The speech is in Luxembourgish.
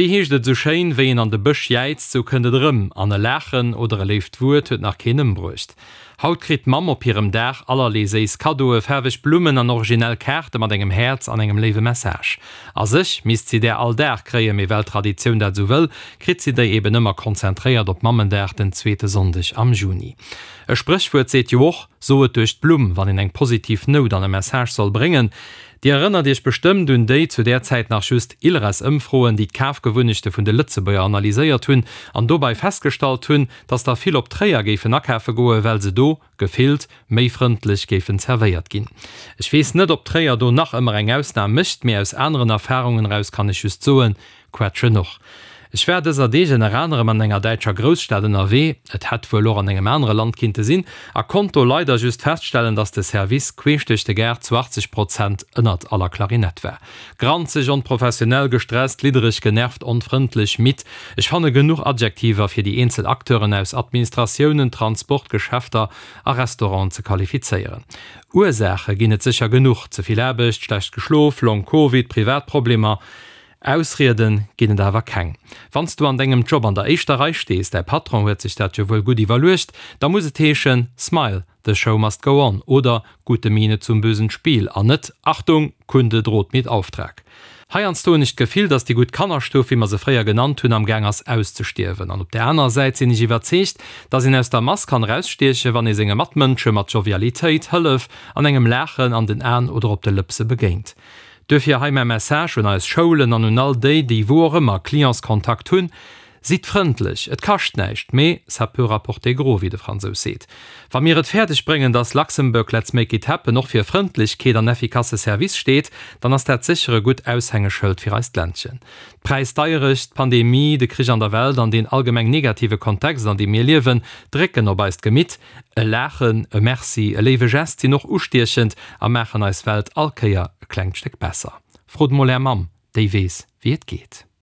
Wéi heescht et esou schéin, Wéi een an de Bësch jäizt, sou kënnt et erëm. An e Laachen oder e léift Wuert huet nach keen ëmbruecht. Haut kritt d'Mamm op hirem Dag allerlee séiss Kaddoe, faarweg Blummen an originell Kaarte mat engem Häerz an engem léiwe Message. A sech misst si där all Dag kréien, mee well d'Traditioun dat esou wëll, kritt si déi eben ëmmer konzentréiert op Mammendag, den zweete Sonndeg am Juni. E Spréchwuert seet jo och, So et duerch d'Blumm, wann een eng positiv Nout an e Message soll bréngen. Dir erënnert Iech bestëmmt un déi, zu där Zäit nach just, ILRES-Ëmfroen, déi d'Kafgewunnechte vun de Lëtzebuerger analyséiert hunn an dobei festgestallt hunn, dass der vill op Tréier géifen akafe goen, well se do, gefillt, méi frëndlech géifen zerwéiert ginn. Ech weess net, ob Tréier do nach ëmmer eng Ausnam mécht, mee aus aneren Erfarungen eraus kann ech just soen, Quetschen och. Ech war dëser Deeg ënner anerem an enger däitscher Grousstad ënnerwee, et hätt wuel och an engem anere Land kinnte sinn, a konnt do leider just feststellen, dass de Service queesch duerch de Gaart zu 80 Prozent ënnert aller Klarinett war. Granzeg, onprofessionell, gestresst, liddereg, genervt, onfrëndlech, midd, ech fanne genuch Adjektiver fir déi eenzel Acteuren aus Administratiounen, Transport, Geschäfter a Restauranten ze qualifizéieren. Ursaache ginn et sécher genuch, ze vill Aarbecht, schlecht geschlof, Long Covid, privat Problemer, Ausrieden ginn et awer keng. Wann s du an dengem Job an der éischter Rei stees, däi Patron huet sech dat jo wuel gutt iwwerluecht, da muss et heeschen, Smile, the show must go on oder Gute Miene zum bösen Spiel an net Achtung, Kunde droht mit Auftrag. Heiansdo hunn ech d'Gefill, dass déi gutt Kannerstuff, wéi mer se fréier genannt hunn, am Gaang ass auszestierwen. An op där anerer Säit sinn ech iwwerzeegt, dass een aus der Mass kann erausstiechen, wann ee senge Matmënsche mat Jovialitéit, Hëllef an engem Laachen an den Aen oder op de Lëpse begéint. Duerfir hei mäi Message un eis Schoulen an un all déi, déi wou och ëmmer Clientskontakt hunn, Sidd frëndlech, et kascht näischt, mee ça peut rapporter gros, wéi de Fransous seet. Wa mir et fäerdeg bréngen, dass Luxembourg let's make it happen och fir Frëndlechkeet an effikasse Service steet, dann ass dat sécher e gutt Aushängeschëld fir eist Ländchen. D'Präisdeierecht, d'Pandemie, de Krich an der Welt an deen allgemeng negative Kontext, an deem mir liewen, drécken op eist Gemitt. E Laachen, e Merci, e léiwe Gest sinn och ustiechend a maachen eis Welt all Kéier e klengt Stéck besser. Frot mol är Mamm, déi weess wéi et geet.